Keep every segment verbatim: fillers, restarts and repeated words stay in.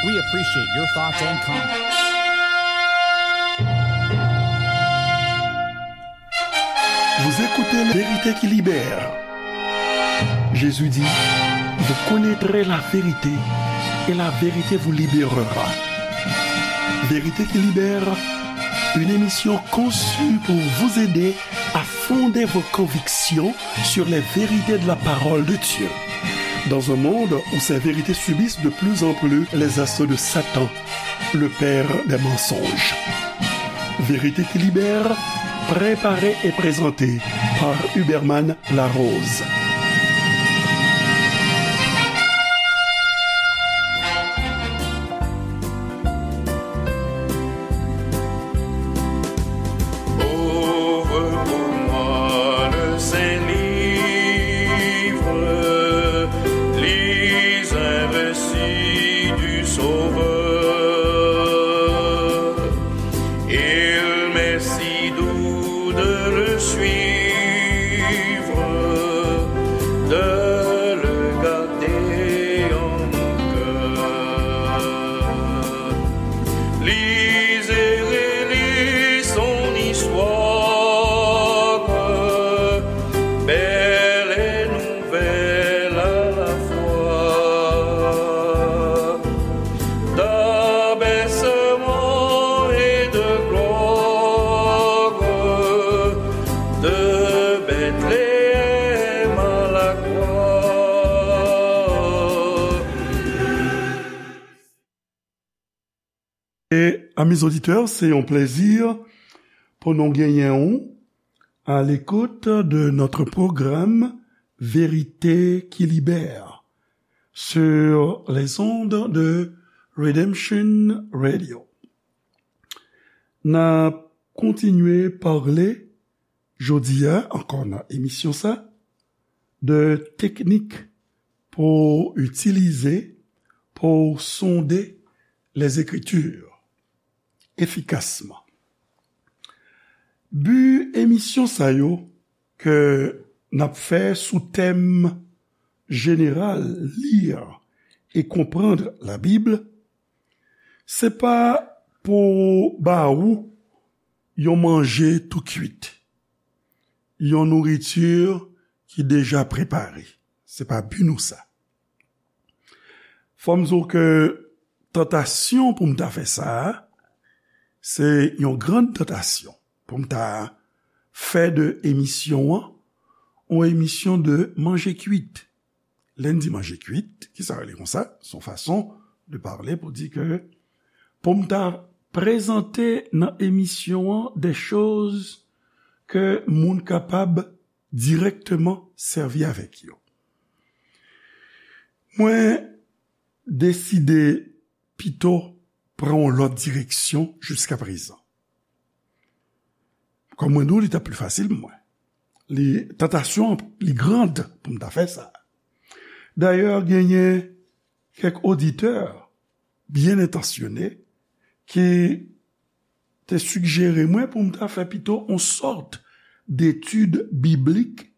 We appreciate your thoughts and comments. Vous écoutez La Vérité qui libère. Jésus dit, vous connaîtrez la vérité et la vérité vous libérera. Vérité qui libère, une émission conçue pour vous aider à fonder vos convictions sur les vérités de la parole de Dieu. Dans un monde où ces vérités subissent de plus en plus les assauts de Satan, le père des mensonges. Vérité qui libère, préparée et présentée par Huberman Larose. Ouvre pour moi le Saint-Livre, lis un récit du Sauveur. Il m'est si doux de le suivre, de le garder en mon cœur. Lis et relis son histoire, belle et nouvelle à la fois, d'abaissement et de gloire, de Bethléem à la croix. E, amis auditeurs, se yon plezi pou nou genyen w à l'écoute de notre programme Vérité qui libère sur les ondes de Redemption Radio. N ap kontinye pale jodi a, ankò nan emisyon sa, de teknik pou w itilize pou w sonde les Écritures efikasman. Bi emisyon sa yo ke n ap fè sou tèm jeneral, Lire et comprendre la Bible, se pa pou ba ou yon manje tou kwit, yon nouriti ki deja prepare. Se pa bi nou sa. Fò m di w ke tantasyon pou m ta fè sa a, se yon gran tantasyon pou m ta fè de emisyon an yon emisyon de manje kwit. Lè n di manje kwit, ki sa rele konsa? Se yon fason de pale pou di ke pou m ta prezante nan emisyon an de choz ke moun kapab dirèkteman sèvi avèk yo. Mwen deside pito pran yon lòt direksyon jiskaprezan. Kòm mwen di w, li t ap pli fasil pou mwen. Li, tantasyon an, li grand pou m ta fè sa. Dayè, genyen kèk oditè byen entansyone ki te sijere mwen pou m ta fè pito yon sòt detid biblik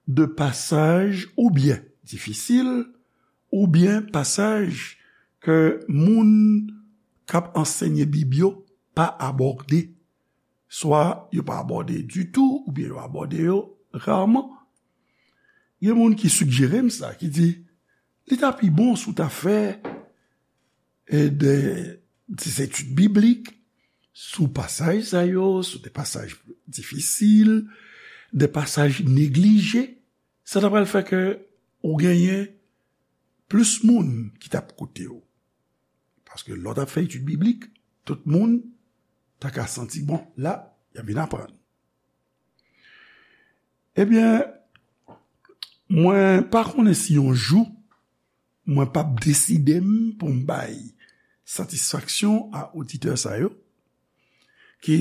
de pasaj oubyen difisil, oubyen pasaj ke moun k ap ansenye Bib yo pa abòde. Swa yo pa abòde ditou, oubyen yo abòde yo raman. Gen moun ki sijere m sa, ki di, li ta pi bon si w ta fè, e, de, de etid biblik sou pasaj sa yo, sou de pasaj difisil, de pasaj neglije. Sa ta pral fè ke ou genyen plis moun ki t ap koute w. Paske lè w t ap fè etid biblik, tout moun ta ka santi, bon, la, y ap vin aprann. Ebyen, mwen pa konnen si yon jou mwen p ap deside m pou m bay satisfaksyon a oditè sa yo ki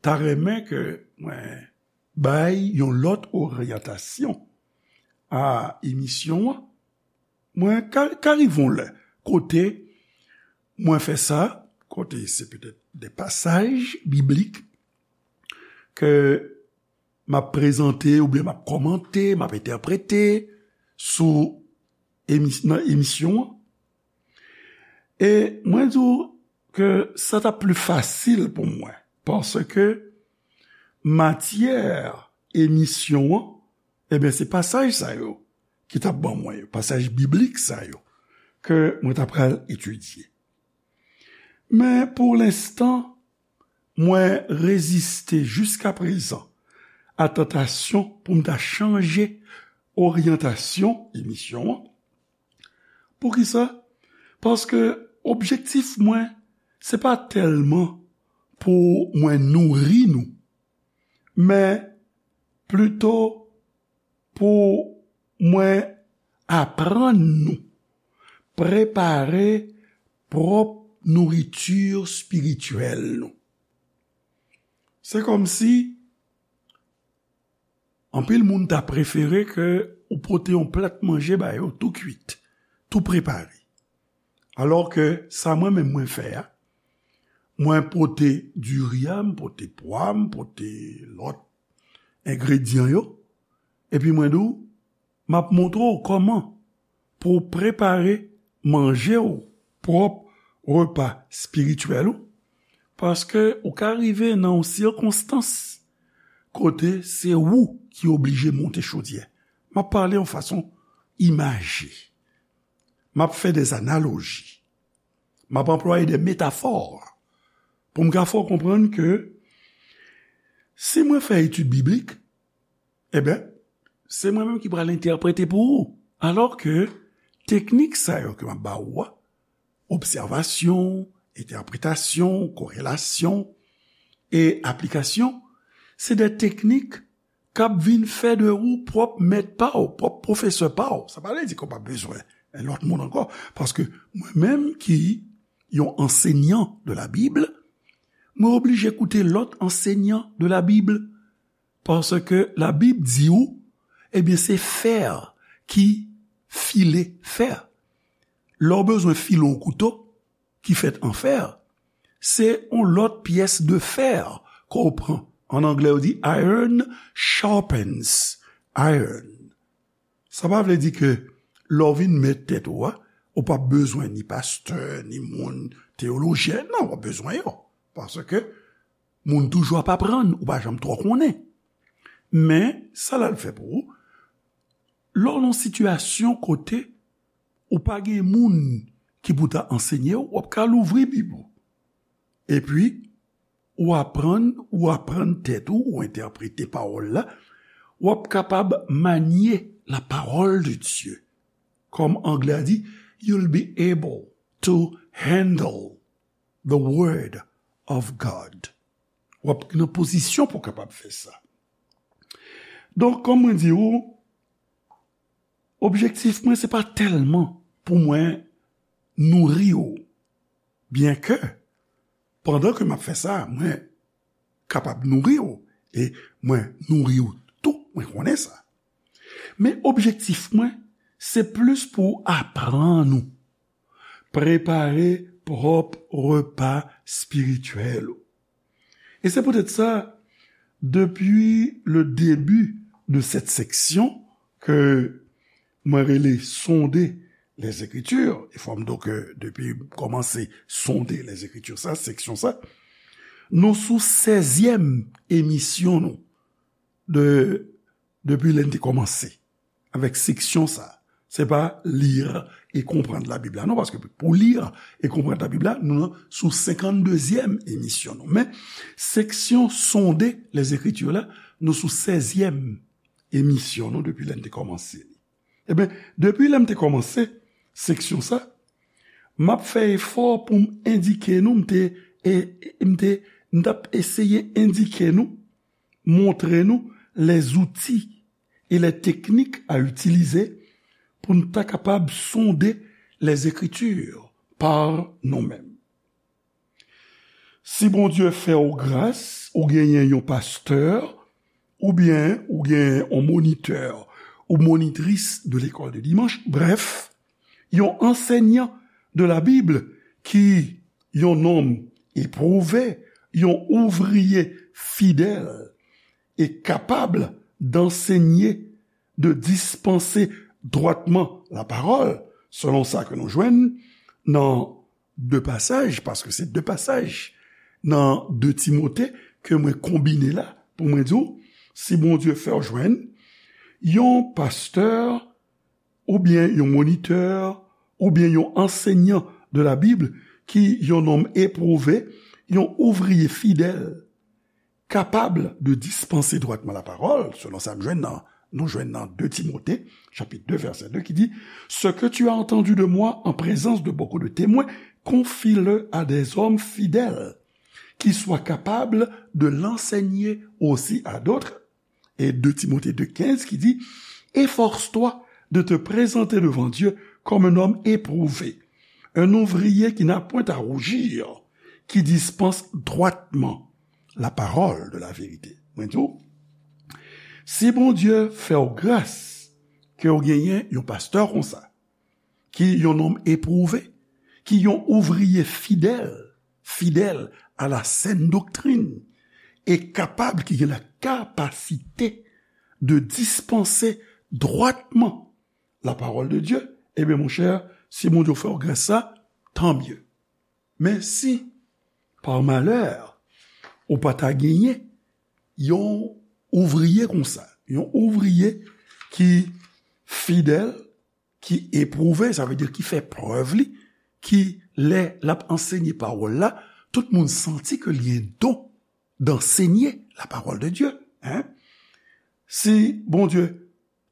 ta renmen ke mwen bay yon lòt oryantasyon a emisyon an. Mwen ka, ka rive yon lè kote mwen fè sa, kote se petèt de pasaj biblik ke m ap prezante oubyen m ap kòmante, m ap entèprete sou emis-, nan emisyon an. E mwen di w ke sa t ap pli fasil pou mwen, paske matyè emisyon an, ebyen, se pasaj sa yo ki t ap ban mwen yo, pasaj biblik sa yo ke mwen ta pral etidye. Men pou lenstan, mwen reziste jiskaprezan a tantasyon pou m ta chanje oryantasyon emisyon an. Poukisa? Paske objektif mwen, se pa tèlman pou mwen nouri nou, men plito pou mwen aprann nou prepare pwòp nouriti espirityèl nou. Se kòmsi anpil moun ta prefere ke ou pote yon plat manje ba yo tou kwit, tou prepare. Alò ke sa mwen menm mwen fè a, mwen pote diri a, m pote pwa, m pote lòt engredyan yo, epi mwen di w, m ap montre w kòman pou w prepare manje w, pwòp repa espirityèl ou, paske ou ka rive nan yon sikonstans kote se ou ki oblije monte chodyè. M ap pale yon fason imaje. M ap fè de analoji. M ap anplwaye de metafò pou m ka fè w konprann ke si mwen fè etid biblik, ebyen, se mwen menm ki pral entèprete pou ou. Alò ke teknik sa yo ke m ap ba ou a, obsèvasyon, entèpretasyon, korelasyon e aplikasyon, se de teknik k ap vin fè de ou pwòp mèt pa w, pwòp pwofesè pa w. Sa pa vle di ke w pa bezwen lòt moun ankò, paske mwen menm ki yon ansenyan de la Bib, mwen oblije koute lòt ansenyan de la Bib, paske la Bib di ou, ebyen, se fè ki file fè. Lè w bezwen file yon kouto ki fèt an fè, se yon lòt pyès de fè ke w pran. An anglè, yo di iron sharpens iron. Sa pa vle di ke lè w vin mèt tèt ou a, ou p ap bezwen ni pastè, ni moun teyolojyen. Non, w ap bezwen yo. Paske moun toujou ap aprann, ou pa janm twò konnen. Men, sa l al fè pou ou, lè w nan sitiyasyon kote ou pa gen moun ki pou ta ansenye w, w ap ka louvri Bib ou. Epi, ou aprann, ou aprann tèt ou, ou entèprete pawòl la, w ap kapab manye la parole de Dieu. Kòm anglè a di, you'll be able to handle the word of God. W ap nan pozisyon pou w kapab fè sa. Donk, kòm mwen di ou, objektif mwen, se pa tèlman pou mwen nouri w. Byenke, pandan ke m ap fè sa, mwen kapab nouri w, e mwen nouri w tou, mwen konnen sa. Men objektif mwen, se plis pou aprann ou prepare pwòp repa espirityèl ou. E se poutèt sa, depi le début de cette section ke mwen rele Sonder les Écritures, e fò m di w ke depi m kòmanse Sonder les Écritures sa, seksyon sa, nou sou sèzyèm emisyon nou de, depi lè n te kòmanse avèk seksyon sa. Se pa Lire et comprendre la Bible la, non, paske pou Lire et comprendre la Bible la, nou nan sou senkanndezyèm emisyon nou. Men, seksyon Sonder les Écritures la, nou sou sèzyèm emisyon nou depi lè n te kòmanse li. Ebyen, depi lè m te kòmanse seksyon sa, m ap fè efò pou m endike nou, m te, e, e, m te, m t ap eseye endike nou, montre nou les outils et les techniques à utiliser pou n ta kapab sonder les Écritures par nou menm. Si Bondye fè w gras, ou genyen yon pastè, oubyen ou genyen yon monitè ou monitris de lekòl de dimanch, brèf, yon ansenyan de la Bib ki yon nonm epwouve, yon ouvriye fidèl e kapab d'enseigner, de dispenser droitement la parole, selon sa ke nou jwenn nan de pasaj, paske se de pasaj nan de Timote ke mwen konbine la pou mwen di w, si Bondye fè w jwenn yon pastè oubyen yon monitè oubyen yon ansenyan de la Bib ki yon nonm epwouve, yon ouvriye fidèl, capable de dispenser droitement la parole, selon sa m jwenn nan, nou jwenn nan de Timote, chapit de, vèsè de, ki di, Ce que tu as entendu de moi en présence de beaucoup de témoins, confie-le à des hommes fidèles, qui soient capables de l'enseigner aussi à d'autres. Et de Timothée deux quinze qui dit, Efforce-toi de te présenter devant Dieu comme un homme éprouvé, un ouvrier qui n'a point à rougir, qui dispense droitement la parole de la vérité. Mwen di w, si Bondye fè w gras ke w genyen yon pastè konsa, ki yon nonm epwouve, ki yon ouvriye fidèl, fidèl à la saine doctrine, e kapab, ki gen la kapasite de dispanse dwatman la parole de Dieu, ebyen, monchè, si Bondye fè w gras sa, tant mieux. Men si, par malheur, ou pa ta genyen yon ouvriye konsa, yon ouvriye ki fidèl, ki epwouve, sa vle di ki fè prèv li, ki lè l ap ansenye pawòl la, tout moun santi ke li gen don d'enseigner la parole de Dieu, hein? Si Bondye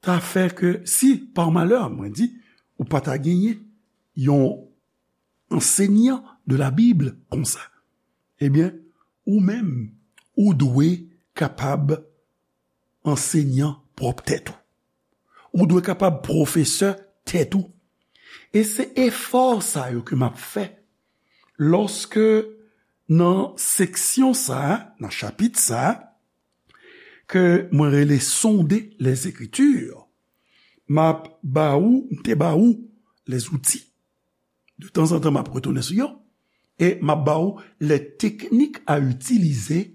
ta fè ke, si, par malheur, mwen di, ou pa ta genyen yon ansenyan de la Bib konsa, ebyen, ou menm, ou dwe kapab ansenyan pwòp tèt ou. Ou dwe kapab pwofesè tèt ou. E se efò sa yo ke m ap fè lòske nan seksyon sa a, nan chapit sa a, ke mwen rele Sonder les Écritures, m ap ba ou, m te ba ou les outils. De tanzantan, m ap retounen sou yo. E m ap ba ou les techniques à utiliser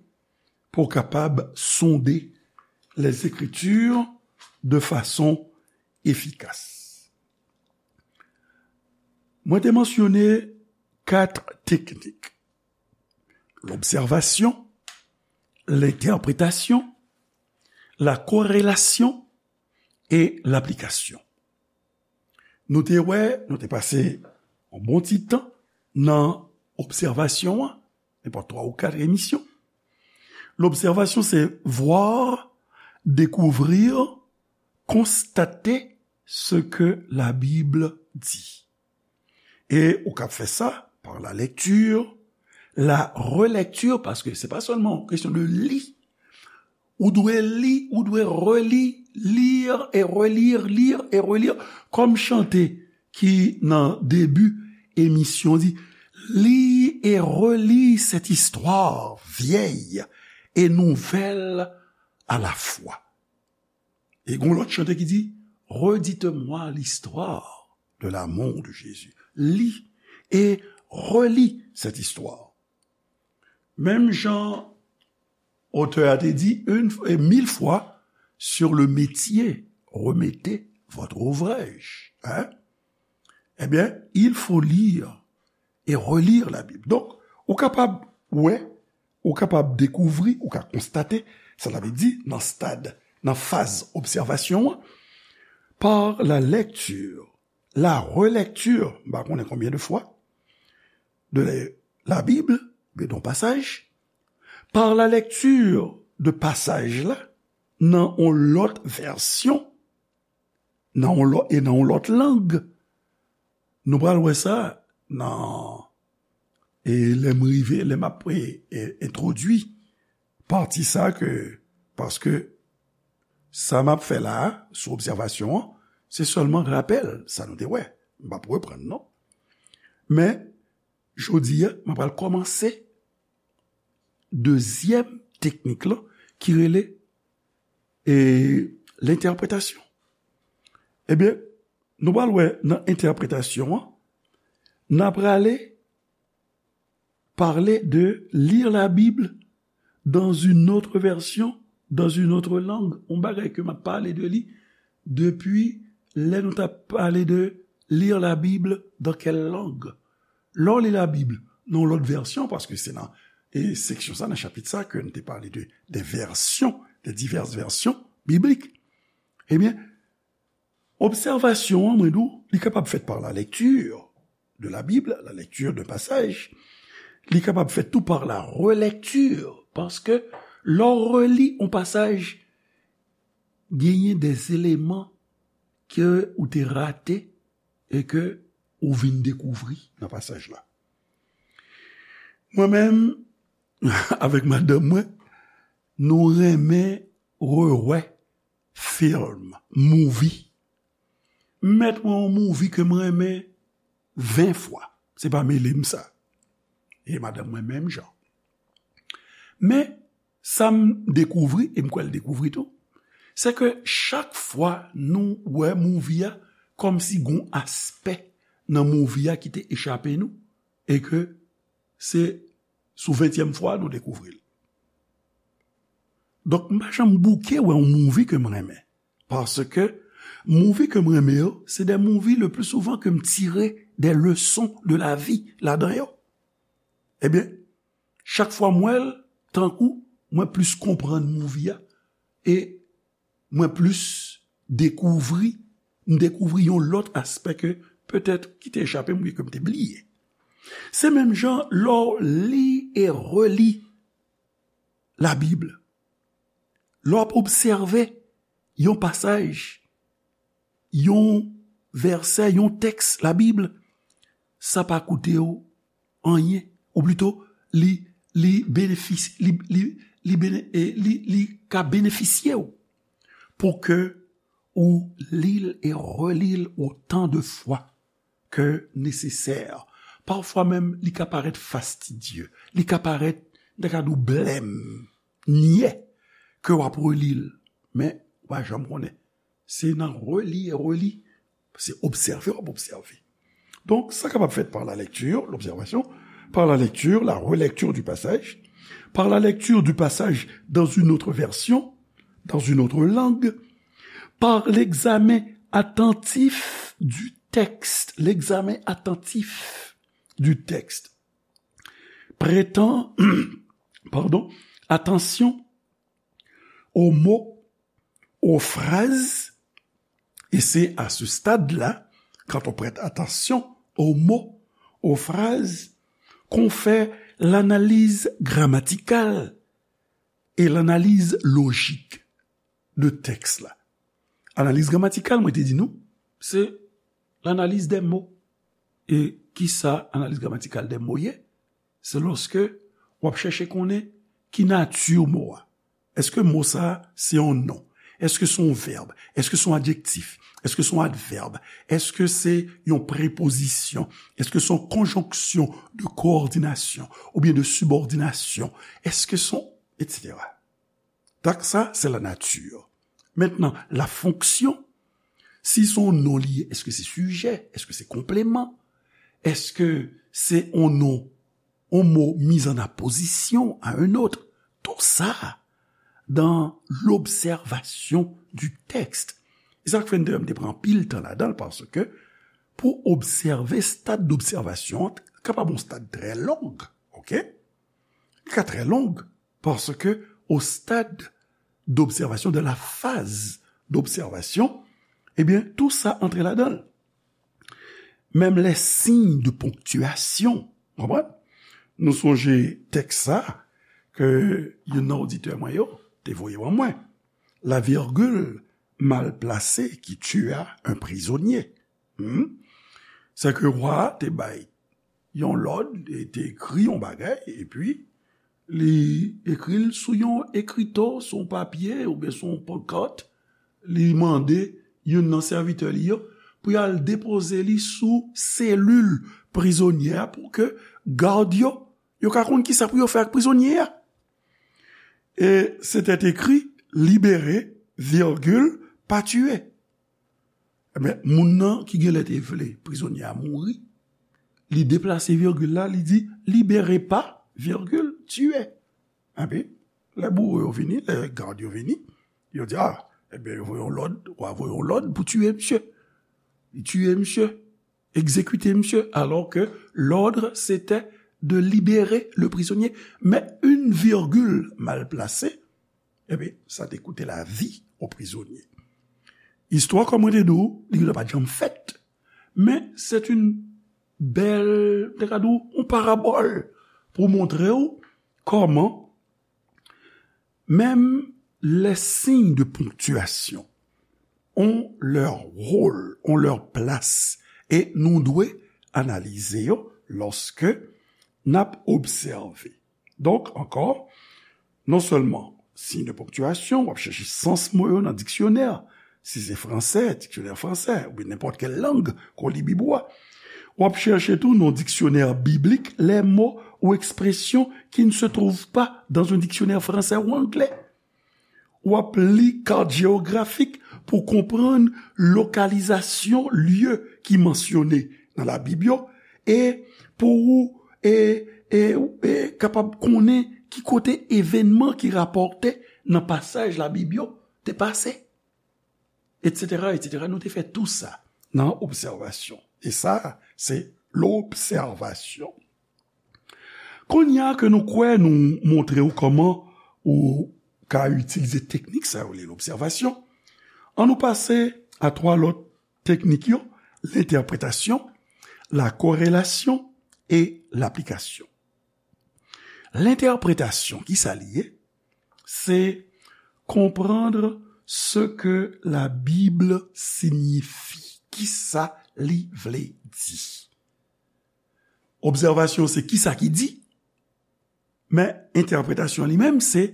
pou w kapab sonde les Écritures de façon efficace. Mwen te mansyone kat teknik: lobsèvasyon, lentèpretasyon, la korèlasyon e laplikasyon. Nou te wè, nou te pase yon bon ti tan nan obsèvasyon an, nenpòt twa ou kat emisyon. Lobsèvasyon, se voir, découvrir, constater ce que la Bible dit. E ou kab fè sa par la lecture, la relecture, paske se pa sèlman yon kesyon de li. Ou dwe li, ou dwe reli, lire et relire, lire et relire. Kòm chante ki nan debi emisyon di, Lis et relis cette histoire vieille et nouvelle à la fois. E gon lòt chante ki di, Redites-moi l'histoire de l'amour de Jésus. Lis et relis cette histoire. Menm jan otè a te di, une, et mille fois, sur le métier, remettez votre ouvrage. Hein? Eh bien, il faut lire et relire la Bible. Donk, ou kapab wè, ou kapab dekouvri, ou ka konstate, sa ta vle di nan stad, nan faz obsèvasyon an, par la lecture, la relecture, m pa konnen konbyen de fwa, de la, la Bible, oubyen de yon pasaj, par la lecture de pasaj la, nan yon lòt vèsyon, nan yon lòt, e nan yon lòt lang. Nou pral wè sa nan, e lè m rive, lè m ap, e, e, entwodui pati sa ke, paske sa m ap fè la a, sou obsèvasyon an, se sèlman rapèl sa nou te wè. M p ap reprann, non. Men, jodi a, m ap pral kòmanse dezyèm teknik lan, ki rele, e, lentèpretasyon. Ebyen, nou pral wè nan entèpretasyon an, n a prale parle de lire la Bible dans une autre version, dans une autre langue. Yon bagay ke m ap pale de li depi lè nou t ap pale de lire la Bible dans quelle langue. Lè w li Labib nan yon lòt vèsyon, paske se nan e seksyon sa, nan chapit sa, ke n te pale de, de vèsyon, de divès vèsyon biblik, ebyen, obsèvasyon an, mwen di w, li kapab fèt par la lecture de la Bible, la lecture d'un passage, li kapab fèt tou par la relecture, paske lè w reli yon pasaj, genyen de eleman ke ou te rate e ke ou vin dekouvri nan pasaj la. Mwen menm, avèk madanm mwen, nou renmen rewè film, movie. M mèt wè yon movie ke m renmen ven fwa. Se pa mele m sa. E madanm mwen menm jan. Men, sa m dekouvri, e m kwè l dekouvri tou, se ke chak fwa nou wè movie a, kòmsi gon aspè nan movie a ki te echape nou, e ke se sou ventyèm fwa nou dekouvri l. Donk, m pa janm bouke wè yon movie ke m renmen. Paske movie ke m renmen yo, se de movie le plus souvent ke m tire de leçons de la vie ladan yo. Ebyen, chak fwa m wè l, tankou mwen plis konprann movie a, e mwen plis dekouvri, m dekouvri yon lòt aspè ke petèt ki te echape m, ke m te bliye. Se menm jan lè w li e reli Labib. Lè w ap obsève yon pasaj, yon vèsè, yon tèks Labib, sa pa koute w anyen. Ou plito, li, li benefis-, li, li, li bene-, e li, li ka benefisye w pou ke ou li l e reli l otan de fwa ke nesesè. Pafwa menm, li ka parèt fastidye. Li ka parèt, m ta ka di w, blèm, nyè, ke w ap reli l. Men, ou pa janm konnen. Se nan reli e reli, se obsève w ap obsève. Donk, sa kapab fèt par la lecture, l'observation, par la lecture, la relecture du passage, par la lecture du passage dans une autre version, dans une autre langue, par l'examen attentif du texte, l'examen attentif du texte, prêtant, pardon, attention aux mots, aux phrases, et c'est à ce stade-là, quand on prête attention aux mots, aux phrases, qu'on fait l'analyse grammaticale et l'analyse logique de tèks la. Analiz gramatikal, mwen te di nou, se l'analyse des mots. E kisa analiz gramatikal des mots ye? Se lòske w ap chèche konnen ki nati mo a. Èske mo sa a se yon non? Èske se yon vèb? Èske se yon adjektif? Èske se yon advèb? Èske se yon prepozisyon? Èske se yon konjonksyon de kowòdinasyon oubyen de sibòdinasyon? Èske se yon, etsetera. Donk sa, se la nature. Maintenant, la fonction, si se yon non li ye, èske se sijè? Èske se konpleman? Èske se yon non, yon mo mis en apposition à un autre? Tout ça dans l'observation du texte. E sa k fè m te, m te pran anpil tan ladan l, paske pou obsève, stad d'obsèvasyon an kapab yon stad trè long, oke? Li ka trè long, paske au stade d'observation, de la phase d'observation, ebyen, tou sa antre ladan l. Menm les signes de ponctuation, w konprann? Nou sonje tèks sa ke youn nan oditè mwen yo te voye ban mwen. La virgule mal placée qui tua un prisonnier. Hmm? Se ke wa a te bay yon lòd, e te ekri yon bagay, epi li ekri l sou yon ekrito, sou yon papye, oubyen sou yon pankart, li mande youn nan sèvitè li yo pou y al depoze li sou selil prizonye a pou ke gad yo, yo ka konn kisa pou yo fè ak prizonye a. E se te ekri, libéré, virgule, pas tué. Ebyen, moun nan ki genlè te vle prizonye a mouri, li deplase virgil la, li di, libéré pas, virgule, tué. Epi, lè bouwo yo vini, lè gad yo vini, yo di, a, ebyen, yo voye yon lòd, wa voye yon lòd pou tiye misye. Li tiye misye. Exécuter monsieur, alors que l'ordre c'était de libérer le prisonnier. Mais une virgule mal placée, eh bien, ça te coûtait la vie au prisonnier. Istwa, kòm mwen te di w, li pa t janm fèt. Men se yon bèl, te ka di w, yon parabòl pou montre w kòman menm les signes de ponctuation ont leur rôle, ont leur place, e nou dwe analize yo lòske n ap obsève. Donk, ankò, non sèlman siy de ponktiyasyon, w ap chèche sans mo yo nan diksyonè, si se fransè, diksyonè fransè, oubyen nenpòt kèl lang ke w li Bib ou a. W ap chèche tou nan diksyonè biblik les mots ou expressions qui ne se trouvent pas dans un dictionnaire français ou anglais. W ap li kat jewografik pou konprann lokalizasyon lye ki mansyone nan Labib yo, e pou ou e, e, e kapab konnen ki kote evènman ki rapòte nan pasaj Labib yo te pase, etsetera, etsetera. Nou te fè tou sa nan obsèvasyon. E sa, se lobsèvasyon. Kounye a ke nou kwè nou montre w kòman ou ka itilize teknik sa yo rele lobsèvasyon, ann nou pase a twa lòt teknik yo, lentèpretasyon, la korelasyon e laplikasyon. Lentèpretasyon, ki sa li ye? Se comprendre ce que la Bible signifie. Ki sa li vle di? Obsèvasyon se ki sa ki di, men entèpretasyon li menm se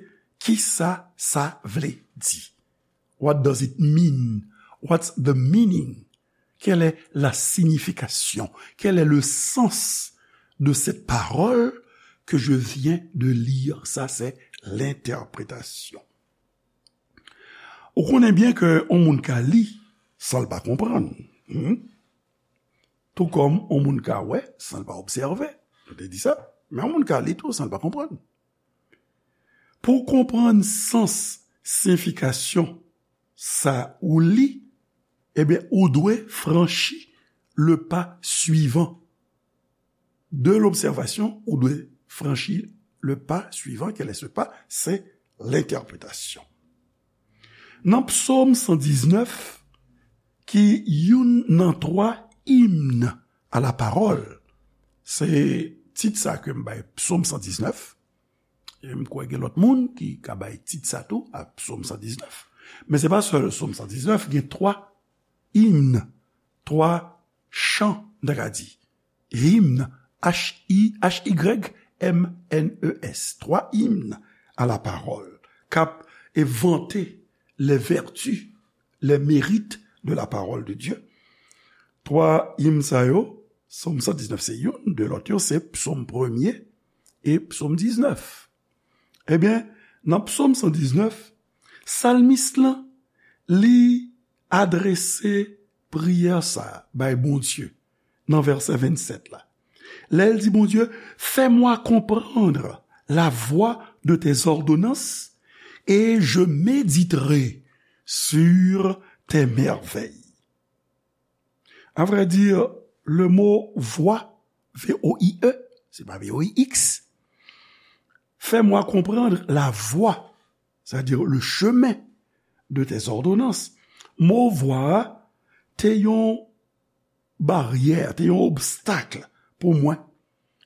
ki sa sa vle di. What does it mean? What's the meaning? Quelle est la signification? Quel est le sens de cette parole que je viens de lire? Sa se lentèpretasyon. Ou konnen byen ke yon moun ka li san l pa konprann. Hmm? Tou kòm yon moun ka wè san l pa obsève. Nou te di sa. Men yon moun ka li tou san l pa konprann. Pou w konprann sans, siyifikasyon sa ou li, ebyen, ou dwe franchi le pa swivan. De lobsèvasyon, ou dwe franchi le pa swivan. Quel est ce pas? Se lentèpretasyon. Nan Psòm san diznèf, ki youn nan twa imn a la pawòl, se tit sa ke m bay Psòm san diznèf, e m kwè gen lòt moun ki ka bay tit sa tou a Psòm san diznèf. Men se pa sèl Psòm san diznèf, gen twa imn, twa chan, m ta ka di. Hymne, H I, H Y M N E S, twa imn a la pawòl, k ap vante les vertus, les mérites de la parole de Dieu. Twa imn sa yo, Psòm san diznèf se youn, de lòt yo se Psòm premye e Psòm diznèf. Ebyen, nan Psòm san diznèf, salmis lan, li adrese priyè sa a bay Bondye nan vèsè vennsèt la. Lè l di Bondye, fais-moi comprendre la voie de tes ordonnances et je méditerai sur tes merveilles. À vrai dire, le mot voie, V O I E, se pa V O I X, fais-moi comprendre la voie, c'est-à-dire le chemin de tes ordonnances. Mo vwa a te yon baryè, te yon obstak pou mwen.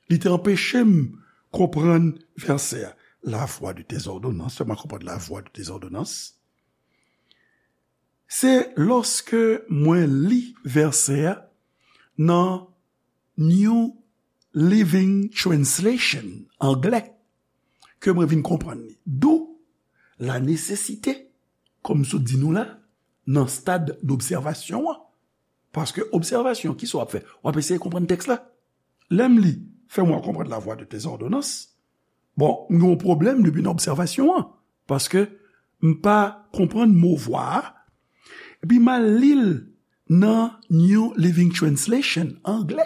Li te anpeche m konprann vèsè a. La voie de tes ordonnances, fais-moi comprendre la voie de tes ordonnances. Se lòske mwen li vèsè a nan New Living Translation, anglè, ke mwen vin konprann li. D'où la nécessité, kòm m sot di nou la, nan stad d'obsèvasyon an. Paske obsèvasyon, kisa w ap fè? W ap eseye konprann tèks la. Lè m li, fais-moi comprendre la voie de tes ordonnances. Bon, m gen yon pwoblèm depi nan obsèvasyon an, paske m pa konprann mo vwa a. Epi m al li l nan New Living Translation, anglè.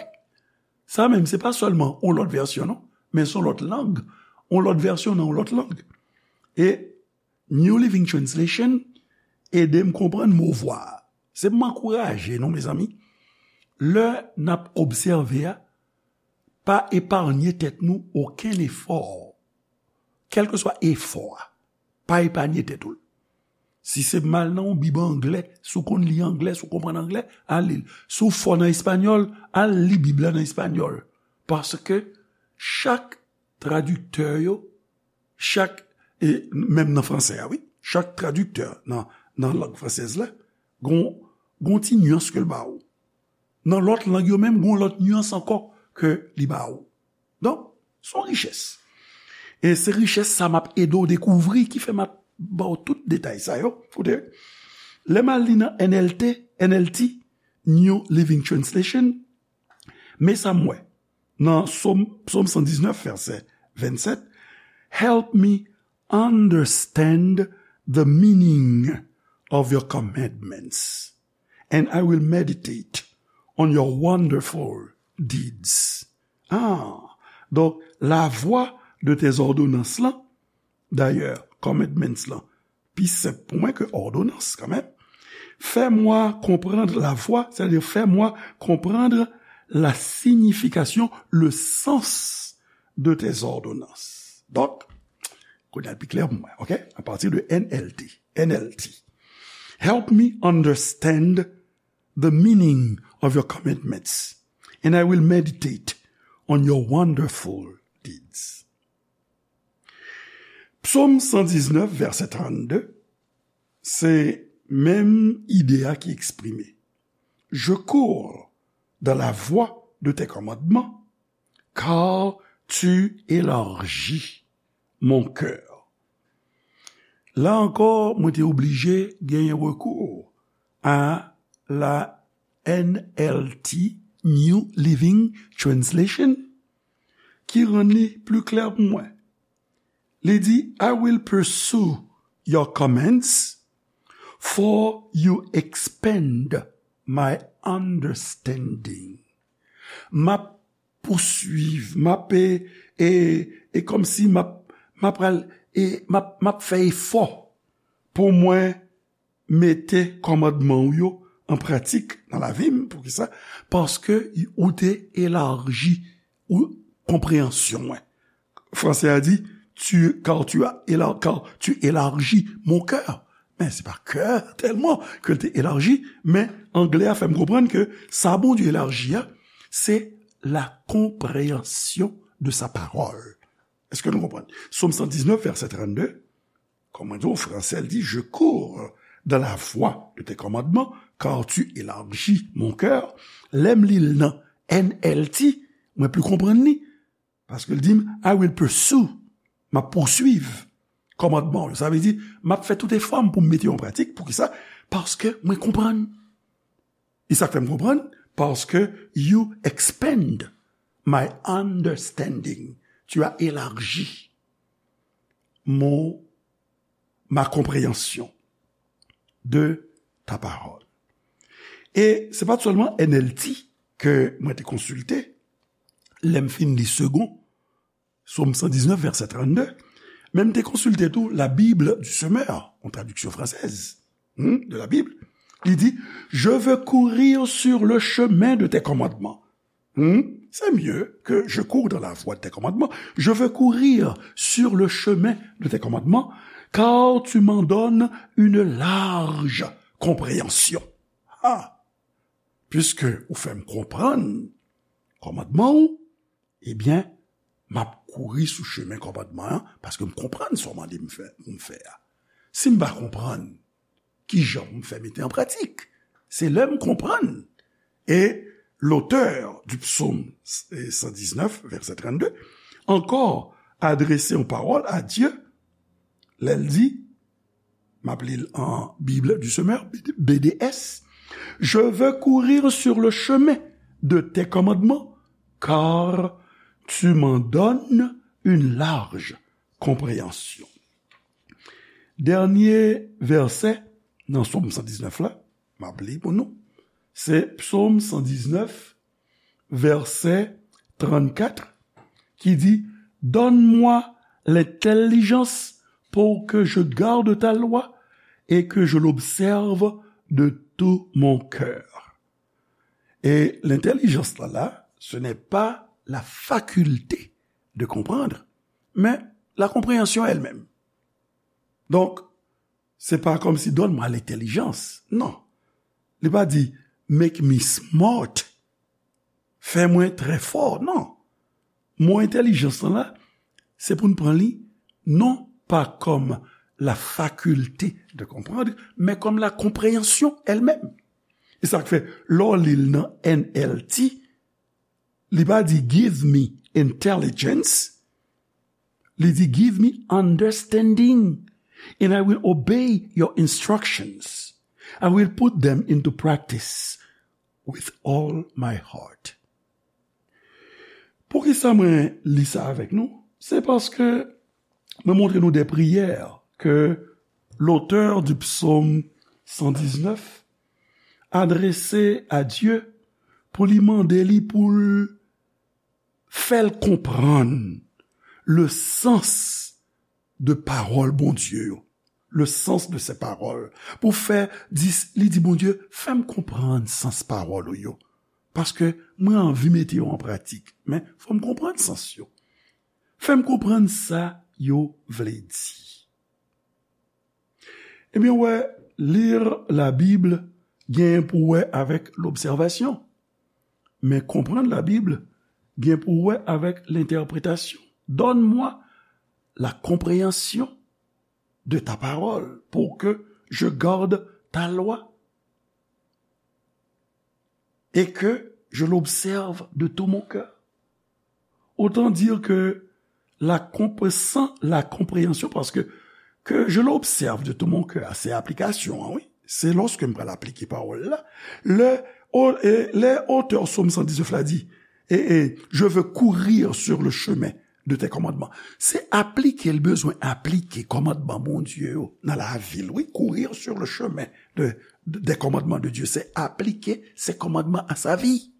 Sa menm, se pa sèlman yon lòt vèsyon, non, men se yon lòt lang. Yon lòt vèsyon nan yon lòt lang. E New Living Translation ede m konprann mo vwa a. Se pou m ankouraje nou, mezanmi, lè n ap obsève a, pa eparnye tèt nou okenn efò. Kèlkeswa efò a, pa eparnye tèt ou l. Si se m al nan yon bib anglè, si w konn li anglè, si w konprann anglè, al li l. Si w fò nan espanyòl, al li bib la nan espanyòl. Paske chak tradiktè yo, chak, e menm nan fransè a, wi, chak tradiktè nan, nan lang fransèz la, gon, gon ti nyans ke l ba ou. Nan lòt lang yo menm, gon lòt nyans ankò ke li ba ou. Donk, se yon richès. E se richès sa m ap ede w dekouvri, ki fè m ap ba w tout detay sa yo. Koute, lè m al li nan N L T, N L T, New Living Translation, men sa m wè nan Sòm, Sòm san diznèf, vèsè vennsèt, "Help me understand the meaning of your commandments, and I will meditate on your wonderful deeds." Ah, donk, lavwa de tes ordonnances lan, dayè, commandments lan, pi senp pou mwen ke òdonans, kanmenm. Fais-moi comprendre la voie, c'est-à-dire fais-moi comprendre la signification, le sens de tes ordonnances. Donk, kounye a l pi klè pou mwen, ok? A pati de N L T, N L T. "Help me understand the meaning of your commandments, and I will meditate on your wonderful deeds." Psaume cent dix-neuf, verset trente-deux, se menm ide a ki eksprime. "Je cours dans la voie de tes commandements, car tu élargis mon cœur." La ankò, mwen te oblije genyen rekou a la N L T, New Living Translation, ki rann li pli klè pou mwen. Li di, "I will pursue your commands, for you expand my understanding." M ap pouswiv, m ap, e, e, e kòmsi m ap, m ap pral, e, m ap, m ap fè efò pou mwen mete kòmandman w yo an pratik nan lavi m. Poukisa? Paske ou te elaji ou konpreyansyon mwen. Fransè a di, tu, car tu as éla-, car tu élargis mon cœur. Men se pa kè tèlman ke l te elaji, men anglè a fè m konprann ke sa Bondye elaji a, se la compréhension de sa parole. Èske nou konprann? Sòm san diznèf, vèsè trannde, kòm mwen di w, fransè l di, "Je cours dans la voie de tes commandements, car tu élargis mon cœur." Lè m li l nan N L T, mwen pli konprann li. Paske l di m, "I will pursue." M ap pouswiv kòmandman w yo. Sa vle di, m ap fè tout efò m pou m mete yo an pratik. Poukisa? Paske mwen konprann. E sa k fè m konprann? Paske you expand my understanding. Tu as élargi mon, ma compréhension de ta parole. E se pa t sèlman N L T ke mwen te konsilte, lè m fin li Segond, Sòm san diznèf, vèsè trannde, men m te konsilte tou la Bible du Semeur, yon tradiksyon fransèz, hmm, de la Bible. Li di, "Je veux courir sur le chemin de tes commandements." Hmm? C'est mieux que "Je cours dans la voie de tes commandements." "Je veux courir sur le chemin de tes commandements, car tu m'en donnes une large compréhension." Ah! Puiske ou fè m konprann kòmandman w, ebyen, m ap kouri sou chemen kòmandman an, paske m konprann sa w mande m fè, pou m fè a. Si m pa konprann, ki jan pou m fè mete an pratik? Se lè m konprann. Et l'auteur du psaume cent dix-neuf, verset trente-deux, encore adressé en parole à Dieu, lè l di, m ap li l an Bible du Semeur, B D S, "Je veux courir sur le chemin de tes commandements, car tu m'en donnes une large compréhension." Dènye vèsè nan Sòm san diznèf la, m ap li pou nou, se Sòm san diznèf, vèsè trannkat, ki di, "Donne-moi l'intelligence pour que je garde ta loi et que je l'observe de tout mon cœur." Et l'intelligence là, là, ce n'est pas la faculté de comprendre, mais la compréhension elle-même. Donk, se pa kòmsi donn mwen lentèlijans. Non. Li pa di, make me smart. Fè mwen trè fò. Non. Mo entèlijans lan la, se pou n pran li, non pa kòm la faculté de comprendre, men kòm la compréhension elle-même. E sa k fè, lè w li l nan N L T, li pa di, give me intelligence, li di, give me understanding, and I will obey your instructions. I will put them into practice with all my heart. Poukisa mwen li sa avèk nou? Se paske mwen montre nou de priyè ke l'auteur du psaume cent dix-neuf adrese a Dye pou li mande li pou l fè l konprann le sens de pawòl Bondye yo, le sens de ses paroles. Pou fè, di, li di Bondye, fè m konprann sans pawòl ou yo. Paske mwen anvi mete yo an pratik, men fò m konprann sans yo. Fè m konprann sa yo vle di. Ebyen, wè, lire la Bible gen pou wè avèk l'observation. Men konprann la Bible gen pou wè avèk l'interprétation. Donne-moi la compréhension de ta parole pour que je garde ta loi et que je l'observe de tout mon cœur. Autant dire que la comp-, sans la compréhension, parce que que je l'observe de tout mon cœur, se aplikasyon an, wi. Se lòske m pral aplike pawòl la. Lè, o, e, lè otè Sòm san diznèf la di, e, e, je veux courir sur le chemin de tes commandements. Se aplike l bezwen aplike kòmandman Bondye yo nan lavi l, wi. Courir sur le chemin de, de, des commandements de Dieu. Se aplike ses commandements à sa vie.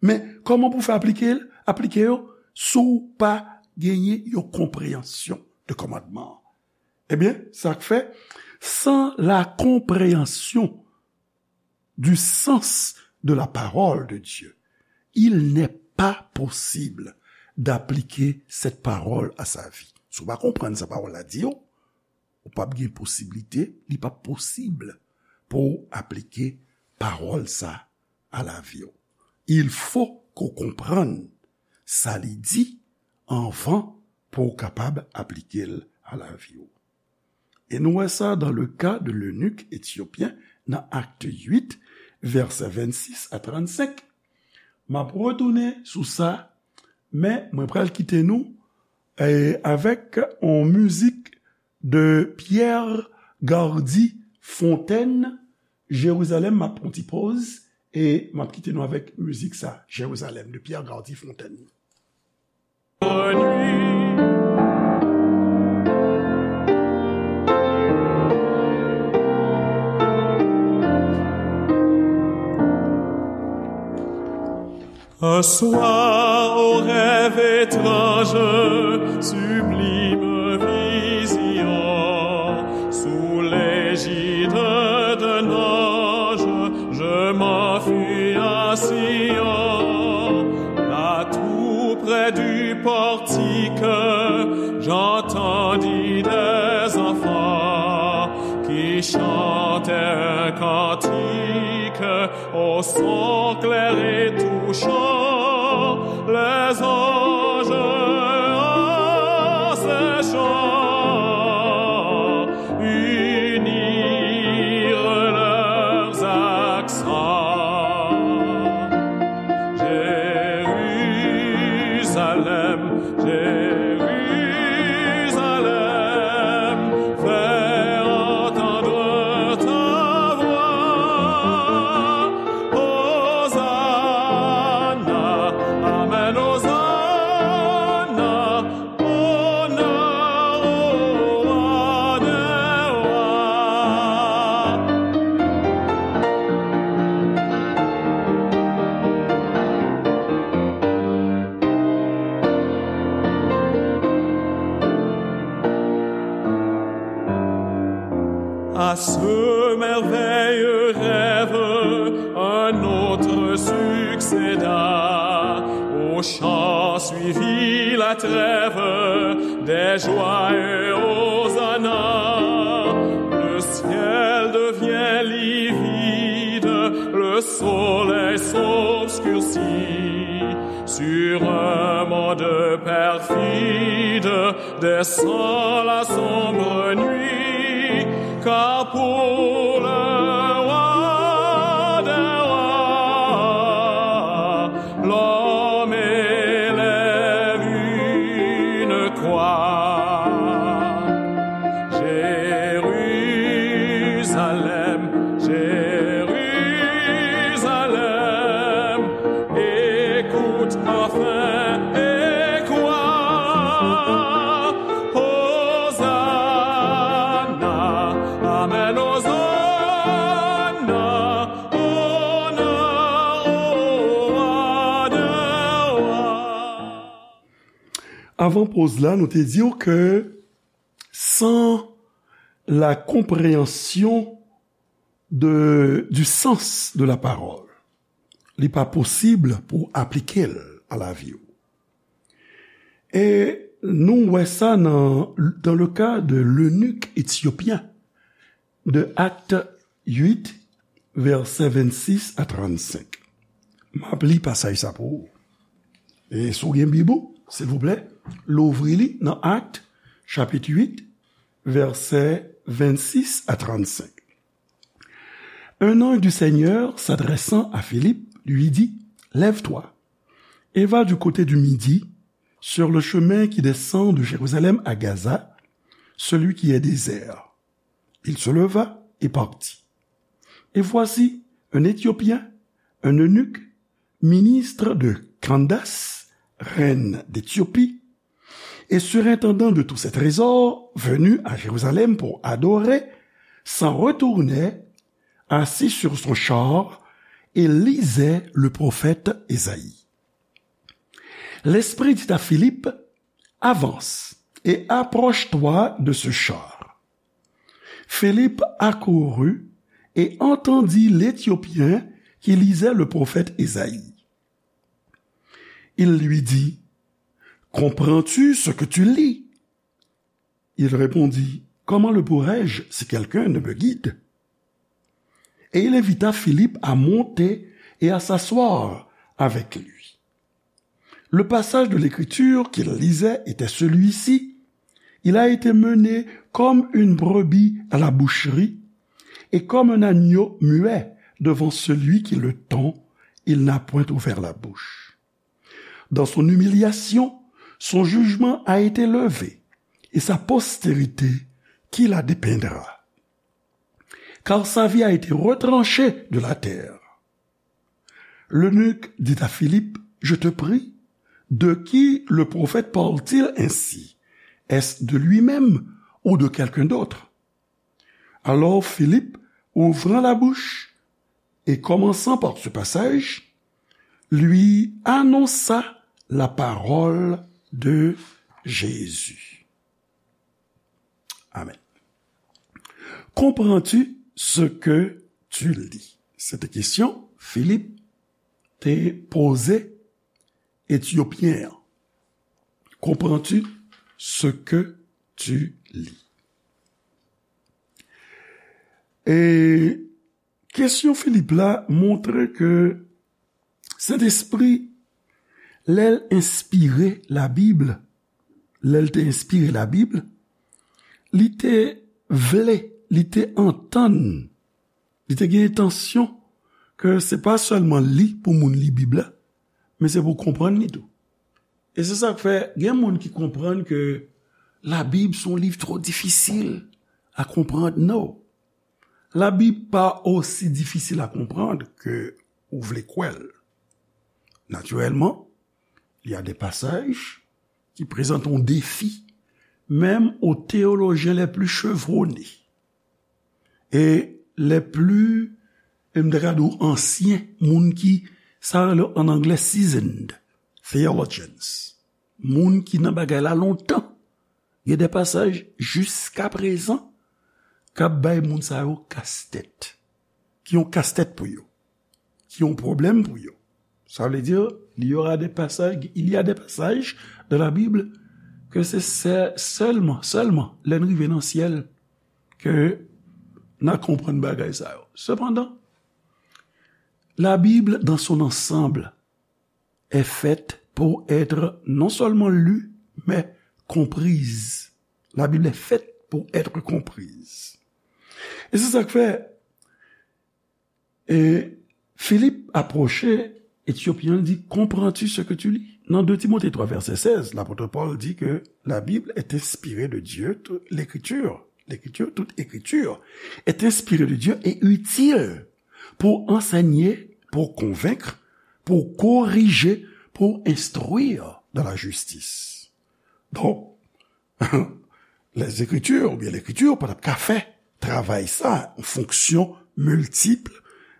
Men, kòman pou fè aplike l, aplike yo, si w pa genyen yon konpreyansyon de kòmandman an? Ebyen, sa k fè, sans la compréhension du sens de la parole de Dieu, il n'est pas possible d'appliquer cette parole à sa vie. Si w pa konprann sa pawòl la di w, ou p ap gen posiblite, li p ap posib pou w aplike pawòl sa a lavi w. Il faut ke w konprann sa li di anvan pou w kapab aplike l a lavi w. E nou wè sa dans le cas de l'eunuque éthiopien nan Acte huit, vèsè vennsis a trannsenk. M ap retounen sou sa, men mwen pral kite nou, eh, avèk yon mizik de Pierre Gardy Fontaine, Jérusalem, m ap pran ti pòz, e m ap kite nou avèk mizik sa, Jérusalem, de Pierre Gardy Fontaine. Un soir, au rêve étrange, sublime vision, sous l'égide d'un ange, je m'enfuis à Sion, là tout près du portique, j'entendis des enfants qui chantaient un cantique au son clair et touchant, les anges en ces chants unirent leurs accents. Jérusalem, Jérusalem, fais entendre ta voix. Hosanna, amen, Hosanna, honneur au roi des rois. À ce merveilleux rêve, un autre Succéda au chant, suivit la trêve des joyeux hosanna. Le ciel devient livide, le soleil s'obscurcit. Sur un monde perfide, descend la sombre nuit, car pour le roi des rois, l'homme élève une croix. Jérusalem, Jérusalem, écoute enfin et crois. Hosanna, amen, Hosanna, honneur au roi des rois. Avan poz la, nou te di w ke sans la compréhension de, du sens de la parole, li pa posib pou aplike l a lavi w. E nou wè sa nan, dans le cas de l'eunuque éthiopien de Actes huit, vèsè vennsis a trannsenk. M ap li pasaj sa pou ou. E si w gen Bib ou, silvouplè, louvri li nan Actes, chapit uit, vèsè vennsis a trannsenk. Un ange du Seigneur, s'adressant à Philippe, lui dit, lève-toi et va du côté du midi, sur le chemin qui descend de Jérusalem à Gaza, celui qui est désert. Il se leva et partit. Et voici un Éthiopien, un eunuque, ministre de Candace, reine d'Éthiopie, et surintendant de tous ses trésors, venu à Jérusalem pour adorer, s'en retournait, assis sur son char, et lisait le prophète Ésaïe. L'Esprit dit à Philippe, avance et approche-toi de ce char. Philippe accourut et entendit l'Éthiopien qui lisait le prophète Ésaïe. Il lui dit, comprends-tu ce que tu lis ? Il répondit, comment le pourrais-je si quelqu'un ne me guide ? Et il invita Philippe à monter et à s'asseoir avec lui. Le passage de l'Écriture qu'il lisait était celui-ci. Il a été mené comme une brebis à la boucherie, et comme un agneau muet devant celui qui le tond, il n'a point ouvert la bouche. Dans son humiliation, son jugement a été levé, et sa postérité qui la dépeindra. Car sa vie a été retranchée de la terre. L'eunuque dit à Philippe, je te prie, de qui le prophète parle-t-il ainsi ? Est-ce de lui-même ou de quelqu'un d'autre ? Alors Philippe, ouvrant la bouche et commençant par ce passage, lui annonça la parole de Jésus. Amen. Comprends-tu ce que tu lis ? Se te kesyon Filip te poze Etyopyen an. Comprends-tu ce que tu lis ? E kesyon Filip la montre ke Sentespri, lè l enspire Labib, lè l te enspire Labib, li te vle, li te antann, li te gen entansyon ke se pa sèlman li pou moun li Bib la, men se pou konprann li tou. E se sa k fè gen moun ki konprann ke Labib se yon liv twò difisil a konprann. No. Labib pa osi difisil a konprann ke ou vle kwè l. Naturellement, il y a des passages qui présentent un défi, même aux théologiens les plus chevronnés. E les plus, e m ta ka di w ansyen, moun ki, sa yo rele an anglè seasoned theologians. Moun ki nan bagay la lontan. Gen de pasaj, jiskaprezan, k ap bay moun sa yo kastèt. Ki yon kastèt pou yo. ki yon pwoblèm pou yo. Sa vle di, il y aura des passages, il y a des passages dans la Bible ke se sè-, sèlman, sèlman lè n rive nan syèl ke n a konprann bagay sa yo. Sepandan, la Bible dans son ensemble est faite pour être non seulement lue, mais comprise. La Bible est faite pour être comprise. E se sa k fè, e, Filip apwoche Etyopyen an, li di, comprends-tu ce que tu lis? Nan de Timote twa vèsè sèz, lapot Pòl di ke la Bible est inspirée de Dieu, tout l'écriture, l'écriture, toute écriture est inspirée de Dieu et utile pour enseigner, pour convaincre, pour corriger, pour instruire dans la justice. Donk, lèzekritir oubyen lekritir pa t ap ka fè travay sa, yon fonksyon miltip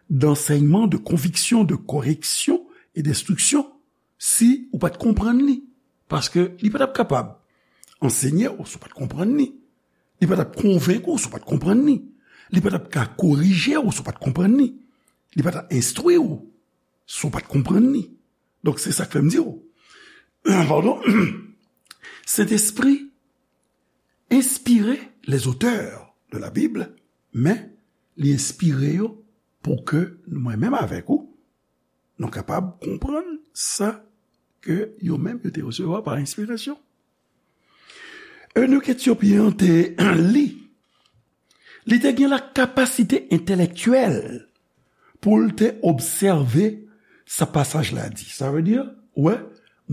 d'ansèyman, de konviksyon, de koreksyon e denstriksyon, si ou pa t konprann li. Paske li pa t ap kapab ansenye w si w pa t konprann li. Li pa t ap konvenk ou si w pa t konprann li. Li pa t ap ka korije w si w pa t konprann li. Li pa t ap enstwi w si w pa t konprann li. Donk, se sa k fè m di w, padon, Sentespri enspire les auteurs de la Bible, men li enspire yo pou ke mwen menm avèk ou, nou kapab konprann sa ke yo menm yo te resevwa pa enspirasyon. Eunik etyopyen an te li, li te gen la kapasite entèlektyèl pou l te obsève sa pasaj la di. Sa vle di, wè,